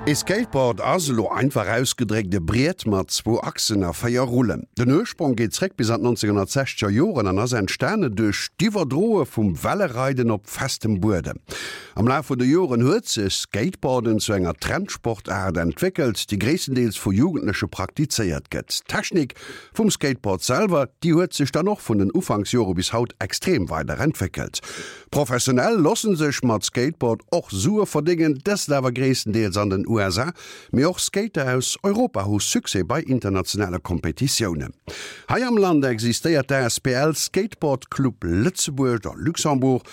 Ee Skateboard ass, elo einfach ausgedréckt, e Briet mat zwou Achsen a 4 Rullen. Den Ursprong geet zréck bis an d'Nonzénhunnertsechzeger Joren an ass entstane duerch d'Iwwerdroe vum Wellereiden op festem Buedem. Am Laf vun de Joren huet sech Skateboarden zu enger Trendsportaart entwéckelt, déi gréisstendeels vu Jugendleche praktizéiert gëtt. D'Technik vum Skateboard selwer, déi huet sech dann och vun den Ufanksjore bis haut extrem weider entwéckelt. Professionell lossen sech mat Skateboard och Sue verdéngen, dëst awer gréisstendeels an den USA, mee och Skater aus Europa hu Succès bei internationale Kompetitiounen. Hei am Land existéiert d'ASBL Skateboard Club Lëtzebuerg oder Luxembourg,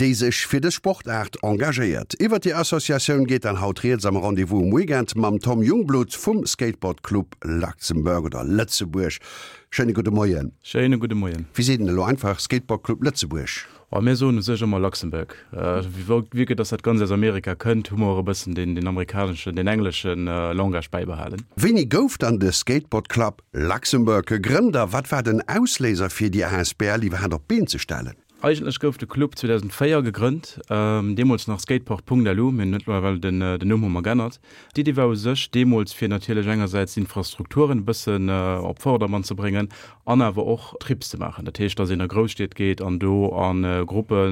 déi sech fir dës Sportaart engagéiert. Iwwer déi Associatioun geet dann haut rieds am Rendez-vous um Weekend mam Tom Jungblut vum Skateboard Club Luxembourg oder Lëtzebuerg. Schéine gudde Moien. Schéine gudde Moien. Wéi seet een elo einfach Skateboard Club Lëtzebuerg? Oh, mir soen u sech ëmmer Luxembourg. Vue que dass dat Ganzt aus Amerika kënnt, hu mer och e bëssen deen, deen amerikaneschen, deen englesche Langage bäibehalen. Wéini gouf dann de Skateboard Club Luxembourg gegrënnt a wat war den Ausléiser fir déi asbl iwwerhaapt op d'Been ze stellen? Eigentlech gouf de Club 2004 gegrënnt, deemools nach Skateport.lu, mir hunn mëttlerweil den Numm hu mer g'ännert. D'Iddi war u sech deemools fir natierlech engersäits d'Infrastrukturen e bëssen op Vordermann ze bréngen an awer och Trips ze maachen. Dat heescht, datt een a Grousstied geet an do a Gruppe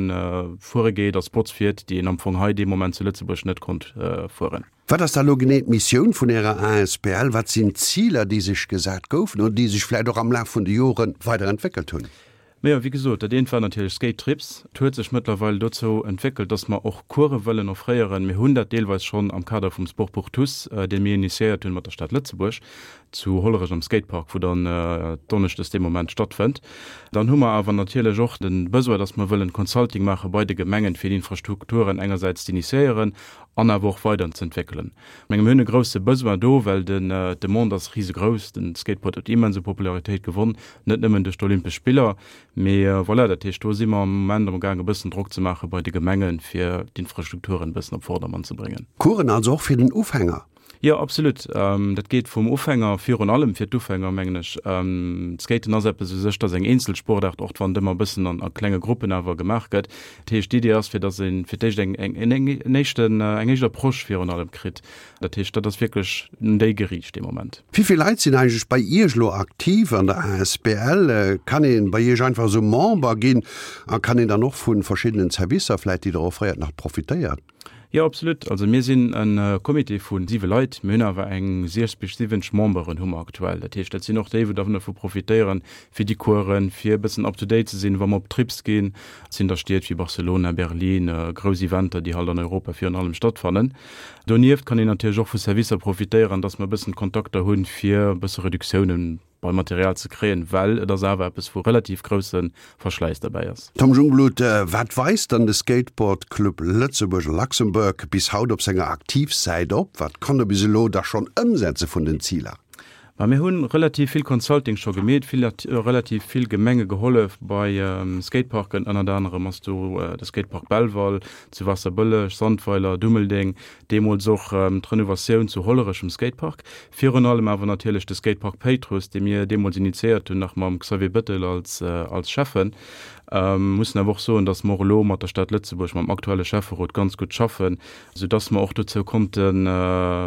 fuere geet a Spots fiert, déi een am Fong hei dee Moment zu Lëtzebuerg net konnt fueren. Wat ass da lo genee d'Missioun vun Ärer asbl? Wat sinn d'Ziler, déi sech gesat goufen oder déi sech vläicht och am Laf vun de Jore weiderentwéckelt hunn? Majo, wéi gesot, dat eent war natierlech Skate Trips. Et huet sech mëttlerweil dozou entwéckelt, dass mer och Course wëllen offréieren. Mir hunn dat deelweis schonn am Kader vum Sport pour tous, dee mir initiéiert hunn mat der Stad Lëtzebuerg, zu Hollerech am Skatepark, wou dann donneschdes dee Moment stattfënnt. Dann hu mer awer natierlech och de Besoin, dass mer wëllen Consulting maache bei de Gemengen, fir d'Infrastrukturen engersäits z'initiéieren an awer och weiderzeentwéckelen. Ech menge mir hunn e grousse Besoin do, well den d'Demande ass risegrouss. Den Skateboard huet immens u Popularitéit gewonn, net nëmmen duerch d'Olympesch Spiller, mee voilà. Dat heescht, do si mer am Moment am gaang e bëssen Drock ze maache bei de Gemengen, fir d'Infrastrukturen e bëssen op Vordermann ze bréngen. Coursen also och fir den Ufänger? Jo, absolut. Dat geet vum Ufänger, virun allem fir d'Ufänger, mengen ech. D'Skaten ass eppes u sech, dat ass eng eenzel Sportaart, och wann et ëmmer e bëssen an a klenge Gruppen awer gemaach gëtt. Dat heescht, d'Idee ass, fir datt ee fir d'éischt eng, eng, en éischten, eng éischt Approche virun allem kritt. Dat heescht, dat ass wierklech un déi geriicht dee Moment. Wéi vill Leit sinn eigentlech bei Iech elo aktiv an der asbl? Kann ee bei Iech einfach esou Member ginn a kann een dann och vu verschiddenen Servicer vläicht, déi Der offréiert, nach profitéieren? Jo, absolut. Also mir sinn e Comité vu siwe Leit. Mir hunn awer eng 60 bis 70 Memberen hu mer aktuell. Dat heescht, dat sinn och déi, wou dervu profitéieren, fir déi Coursen, fir e bëssen up to date ze sinn, wa mer op Trips ginn. Et sinn da Stied wéi Barcelona, Berlin, grouss Eventer, déi halt an Europa virun allem stattfannen. Donieft kann een natierlech och vu Servicer profitéieren, dass mer e bëssen Kontakter hunn, fir e bësse Reduktiounen beim Material ze kréien, well et ass awer eppes, wou relativ grousse Verschläiss derbäi ass. Tom Jungblut, Wat weist dann de Skateboard Club Lëtzebuerg, Luxembourg, bis haut op senger Aktivsäit op? Wat konnt e bis elo da schonn ëmsetze vun den Ziler? Ma mir hu relativ vill Consulting scho gemeet, vill, relativ vill Gemenge gehollef bei Skateparken, ënnert anerem ass do de Skatepark Belval, zu Waasserbëlleg, Sandweiler, Dummeldeng, Deemools och d'Renovatioun zu Hollerech um Skatepark. Virun allem awer natierlech de Skatepark Péitruss, dee mir deemools initiéiert hunn, nach mam Xavier Bettel als als Schäffen. Mussen awer och soen, datt mer och elo mat der Stad Lëtzebuerg, mam aktuelle Schäfferot ganz gutt schaffen, soudatt mer och dozou konnte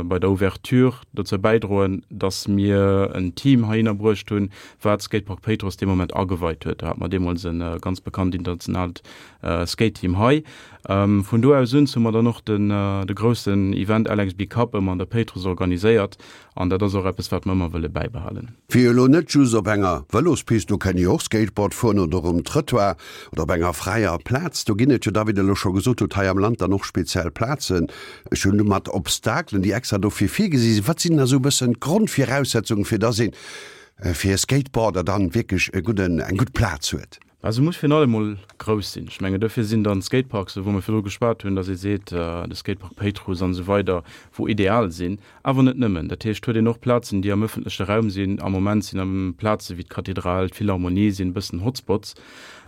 bei der Ouverture dozou bäidroen, datt mir en Team heihinner bruecht hunn, wat Skatepark Péitruss dee Moment ageweit huet. Do hate mer deemools e ganz bekannt internationaalt Skate-Team hei. Vun do aus un hu mer dann och den de groussen Event LXB Cup ëmmer an der Péitruss organiséiert an dat ass och eppes wat mer ëmmer wëlle bäibehalen. Fir elo net just op enger Vëlospist, do kënn jo och Skateboard fueren, oder um Trëttoir oder op enger fräier Plaz, do ginn et jo da, wéi Der elo scho gesot hutt, hei am Land dann och speziell Plazen, ech hunn mat Obstakelen, déi extra dofir virgesi sinn. Wat sinn da sou e bëssen d'Grondviraussetzungen, fir dass een fir e Skateboarder dann wierklech e gudden, eng gutt Plaz huet? Mä se muss virun allem mol grouss sinn. Ech mengen, dofir sinn dann d'Skateparks, wou mer virdru geschwat hunn, datt ee seet, de Skatepark Péitruss an esou weider, wou ideal sinn. Awer net nëmmen. Dat heescht, huet een och Plazen, déi am ëffentleche Raum sinn. Am Moment sinn am Plaze wéi d'Kathedral, d'Philharmonie sinn e bëssen Hotspots.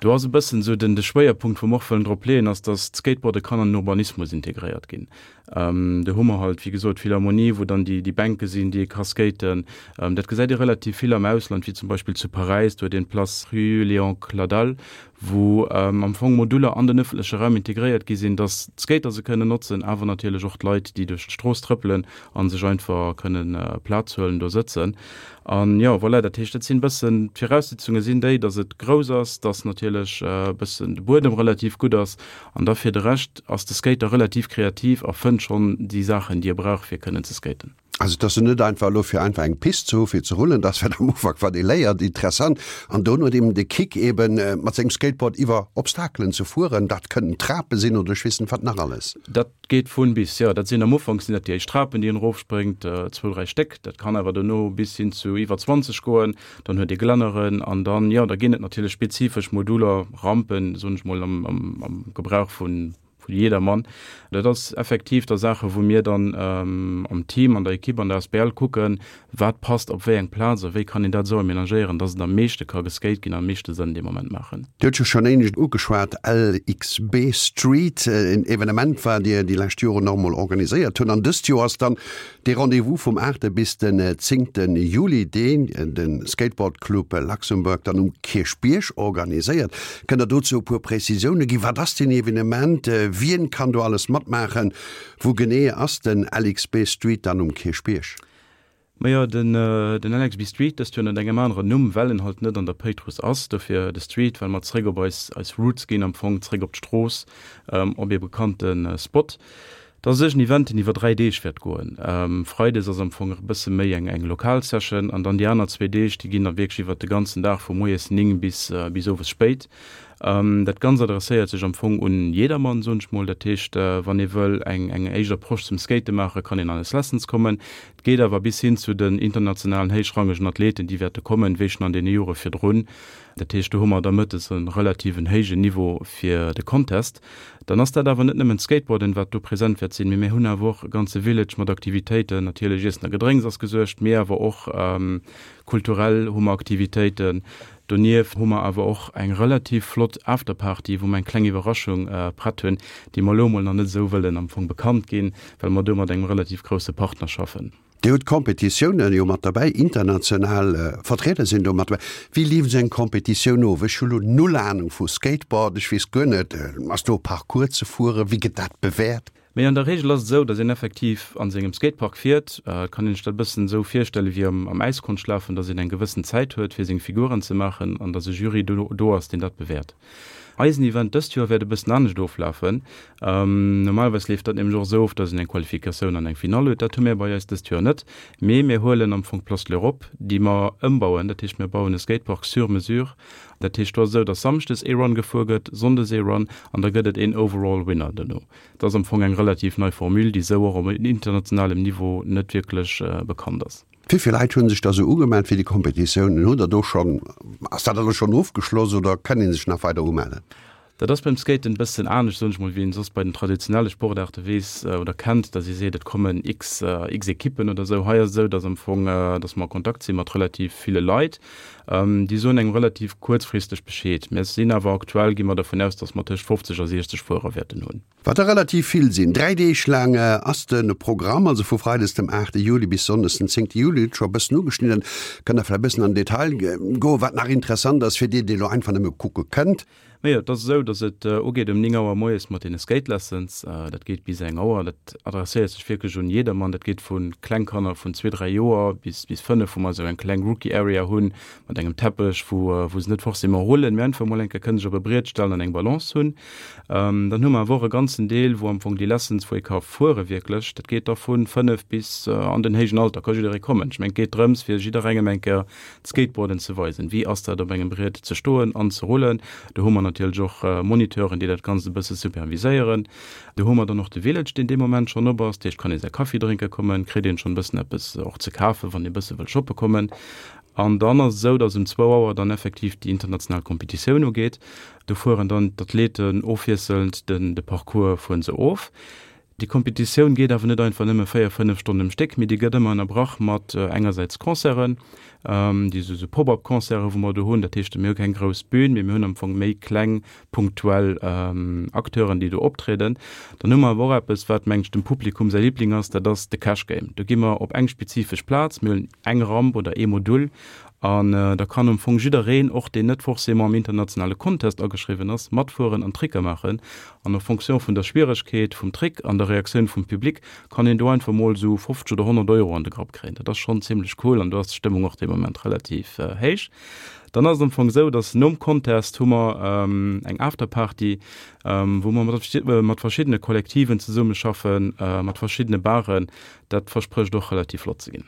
Do ass e bëssen esou den de Schwéierpunkt, wou mer och wëllen drop leeën, ass, datt d'Skateboarde kann an den Urbanismus integréiert ginn. Do hu mer halt, wéi gesot, d'Philharmonie, wou dann déi Bänke sinn, déi ee ka skaten. Dat gesäit ee relativ vill am Ausland, wéi zum Beispill zu Paräis, do huet een d'Place Rue Léon Cladal. aktuell, wou am Fong Moduler an den ëffentleche Raum integréiert gi sinn, dass d'Skater se kënnen notzen, awer natierlech och d'Leit, déi duerch d'Strooss trëppelen a sech einfach kënnen Plaz huelen, do sëtzen. An jo, voilà, dat heescht, dat sinn e bëssen, d'Viraussetzunge sinn déi, dass et grouss ass, dass natierlech e bëssen de Buedem relativ gutt ass an da fir de Rescht ass de Skater relativ kreativ a fënnt schonn déi Saachen, déi e brauch, fir kënnen ze skaten. Also et ass jo net einfach elo fir einfach eng Pist ze hu fir ze rullen, dat ass wat am Ufank wat ee léiert, interessant an dono huet eben de Kick eben mat sengem Skateboard iwwer Obstakelen ze fueren, dat kënnen Trape sinn oder ech weess net wat nach alles. Dat geet vun bis, jo. Dat sinn am Ufank sinn dat déi éischt Trapen déi een erofspréngt, zwou, dräi Stéck, dat kann awer dono bis hin zu iwwer 20 goen, dann huet ee Glänneren an dann, jo, da ginn et natierlech spezifesch Moduler, Rampen, soen ech mol am Gebrauch vun Vu jedermann. Dat ass effektiv da Saache wou mir dann am Team, an der Ekipp, an der Asbl kucken, wat passt op wéi eng Plaz a wéi kann een dat esou amenagéieren, dass et am meeschte ka geskate ginn, am meeschte Sënn dee Moment maachen. Dir hutt jo schonn éinescht ugeschwat, LXB Street, en Evenement wat Dir déi lescht Joren och emol organiséiert hutt. An dëst Joer ass dann Dee Rendez-vous vum aachte bis den zéngte Juli, deen de Skateboard Club Luxembourg dann um Kierchbierg organiséiert. Kënnt der dozou e puer Prezisioune ginn? Wat ass deen Evenement? Wien kann do alles matmaachen? Wou genee ass den LXB Street dann um Kierchbierg? Majo, den LXB Street, dëst Joer ënnert engem aneren Numm, well en halt net an der Péitruss ass, dofir de Street, well mer zréck op eis Roots ginn, am Fong zréck op d'Strooss, op ee bekannte Spot. Dat ass en Event, deen iwwer 3 Deeg wäert goen. Freides ass am Fong e bësse méi eng eng lokal Session an dann déi aner zwee Deeg, déi ginn da wierklech iwwer de ganzen Dag vu moies 9 bis bis owes spéit. Dat Ganzt adresséiert sech am Fong un jedermann, soen ech mol. Dat heescht, wann ee wëll eng eng éischt Approche zum Skate maachen, kann een an eis Lessons kommen. Et geet awer bis hin zu den internationalen héichrangegen Athleten, déi wäerte kommen, wéi schonn an deene Jore virdrun. Dat heescht, do hu mer da mëttes e relativen héijen Niveau fir de Contest. Dann ass dat awer net nëmmen d'Skateboarden, wat do present wäert sinn, mee mir hunn awer och e ganze Village mat Aktivitéiten. Natierlech Iessen a Gedrénks ass gesuergt, mee awer och kulturell hu mer Aktivitéiten. Donieft hu mer awer och eng relativ flott Afterparty, wou mer eng kleng Iwwerraschung prett hunn, déi mer elo emol nach net esou wëllen am Fong bekannt ginn, well mer do mat engem relativ grousse Partner schaffen. Dir hutt Competitiounen jo mat derbäi, international Vertrieder sinn do mat derbäi. Wéi leeft esou eng Competitioun of? Ech hu lo null Anung vu Skateboard, ech weess guer net, ass do e Parcours ze fueren, wéi gëtt dat bewäert? Mee an der Reegel ass et esou, datt een effektiv a sengem Skatepark fiert. Et kann een sech dat e bëssen esou virstelle wéi am Äiskonschlafen, datt een eng gewëssen Zäit huet, fir seng Figuren ze maachen an datt e Jury do ass, deen dat bewäert. Eisen Event dëst Joer wäert e bëssen anescht oflafen. Normalerweis leeft dat nämlech och esou of, dass een eng Qualifikatioun an eng Finall huet. Dat hu mir bei eis dëst Joer net, mee mir huelen am Fong d'Place de l'Europe, déi mer ëmbauen. Dat heescht, mir bauen e Skatepark sur mesure. Dat heescht, do ass et esou, dass samschdes ee Run gefuer gëtt, sonndes ee Run an da gëtt et een Overall Winner dono. Dat ass am Fong eng relativ nei Formule, déi esou och op internationalem Niveau net wierklech bekannt ass. Wéi vill Leit hu sech da sou ugemellt fir déi Competitiounen? Hutt der do schonn, ass dat alles schonn ofgeschloss oder kann ee sech nach weider umellen? Dat ass beim Skaten e bëssen anescht, soen ech mol, wéi een soss bei den traditionelle Sportaarte weess oder kennt, datt ee seet, et kommen x, x Ekippen oder sou. Hei ass et esou, datt am Fong, datt mer a Kontakt si mat relativ ville Leit. Déi soen engem relativ kuerzfristeg Bescheed. Mir sinn awer aktuell, gi mer dervun aus, datt mer tëscht 50 a 60 Fuerer wäerten hunn. Wat der relativ vill sinn. 3 Deeg laang ass de Programm, also vu Freides dem 8 Juli bis Sonndes den 10 Juli. Hutt scho e bëssen ugeschnidden. Kënnt der vläicht e bëssen an den Detail goen, wat nach interessant ass fir dir, déi elo einfach nëmme kucke kënnt? Majo, et ass esou, datt et ugeet um 9 Auer moies mat deene Skate Lessons. Dat geet bis eng Auer. Dat adresséiert sech wierklech un jedermann. Dat geet vu kleng Kanner vun zwee, dräi Joer bis bis fënnef, wou mer esou eng kleng Rookie Area hunn mat engem Teppech, wou wou se net forcément rullen, mee einfach emol eng Kéier kënnen sech op e Briet stellen an eng Balance hunn. Dann hu mer awer och e ganzen Deel, wou am Fong déi Lessons, wou ee ka fuere wierklech, dat geet da vu 5 bis an den héijen Alter, ka jidderee kommen. Ech mengen, et geet drëms, fir jidderengem eng Kéier d'Skateboarden ze weisen. Wéi ass dat, op engem Briet ze stoen an ze rullen? Do hu mer natierlech och Moniteuren, déi dat Ganzt e bësse superviséieren. Do hu mer dann och de Village, deen dee Moment schonn op ass. Dat heescht, kann ee säi Kaffi drénke kommen, kritt een schonn e bëssen eppes och ze kafen, wann ee e bësse wëll shoppe kommen. An dann ass et esou, datt um zwou Auer dann effektiv déi international Competitioun ugeet. Do fueren dann d'Athleten ofwiesselnd den de Parcours fueren se of. Déi Competitioun geet awer net einfach nëmme 4, 5 Stonnen um Stéck, mee déi gëtt ëmmer ënnerbrach mat engersäits Concerten, déi esou esou Pop-up-Concerten, wou mer do hunn. Dat heescht, mir hu keng grouss Bün, mee mir hunn am Fong méi kleng punktuell Acteuren, déi do optrieden. Dann hu mer awer och eppes, wat, mengen ech, dem Publikum säi Liebling ass, dat ass de Cash Game. Do gi mer op eng spezifesch Plaz, mir huelen eng Ramp oder ee Modul An da kann am Fong jiddereen, och deen net forcément am internationale Contest ageschriwwen ass, matfueren an Tricker maachen. An en fonction vun der Schwieregkeet vum Trick an der Reaktioun vum Public kann een do einfach mol esou 50 oder 100 Euro an de Grapp kréien. Dat ass schonn zimlech cool an do ass d'Stëmmung och dee Moment relativ héich. Dann ass et am Fong esou, dass nom Contest hu mer eng Afterparty, wou mer mat verschiddene Kollektiven zesummeschaffen, mat verschiddene Baren. Dat versprécht och relativ flott ze ginn.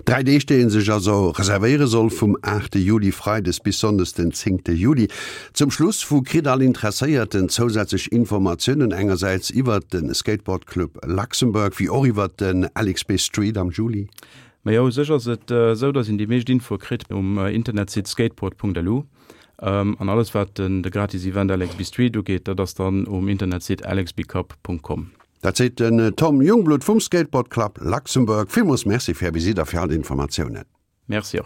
Dräi Deeg, déi ee sech also reservéiere soll, vum aachte Juli, freides, bis sonndes den zéngte Juli. Zum Schluss, wou kritt all Interesséierten zousätzlech Informatiounen, engersäits iwwert de Skateboard Club Luxembourg, wéi och iwwert den LXB Street am Juli? Majo, u sech ass et esou, datt een déi meescht Infoe kritt um Internetsite skateboard.lu. An alles wat de gratis Event LXB Street ugeet, dat ass dann um Internetsite lxbcup.com. Dat seet den Tom Jungblut vum Skateboard Club Luxembourg. Villmools Merci fir Är Visitt a fir all d'Informatiounen. Merci och.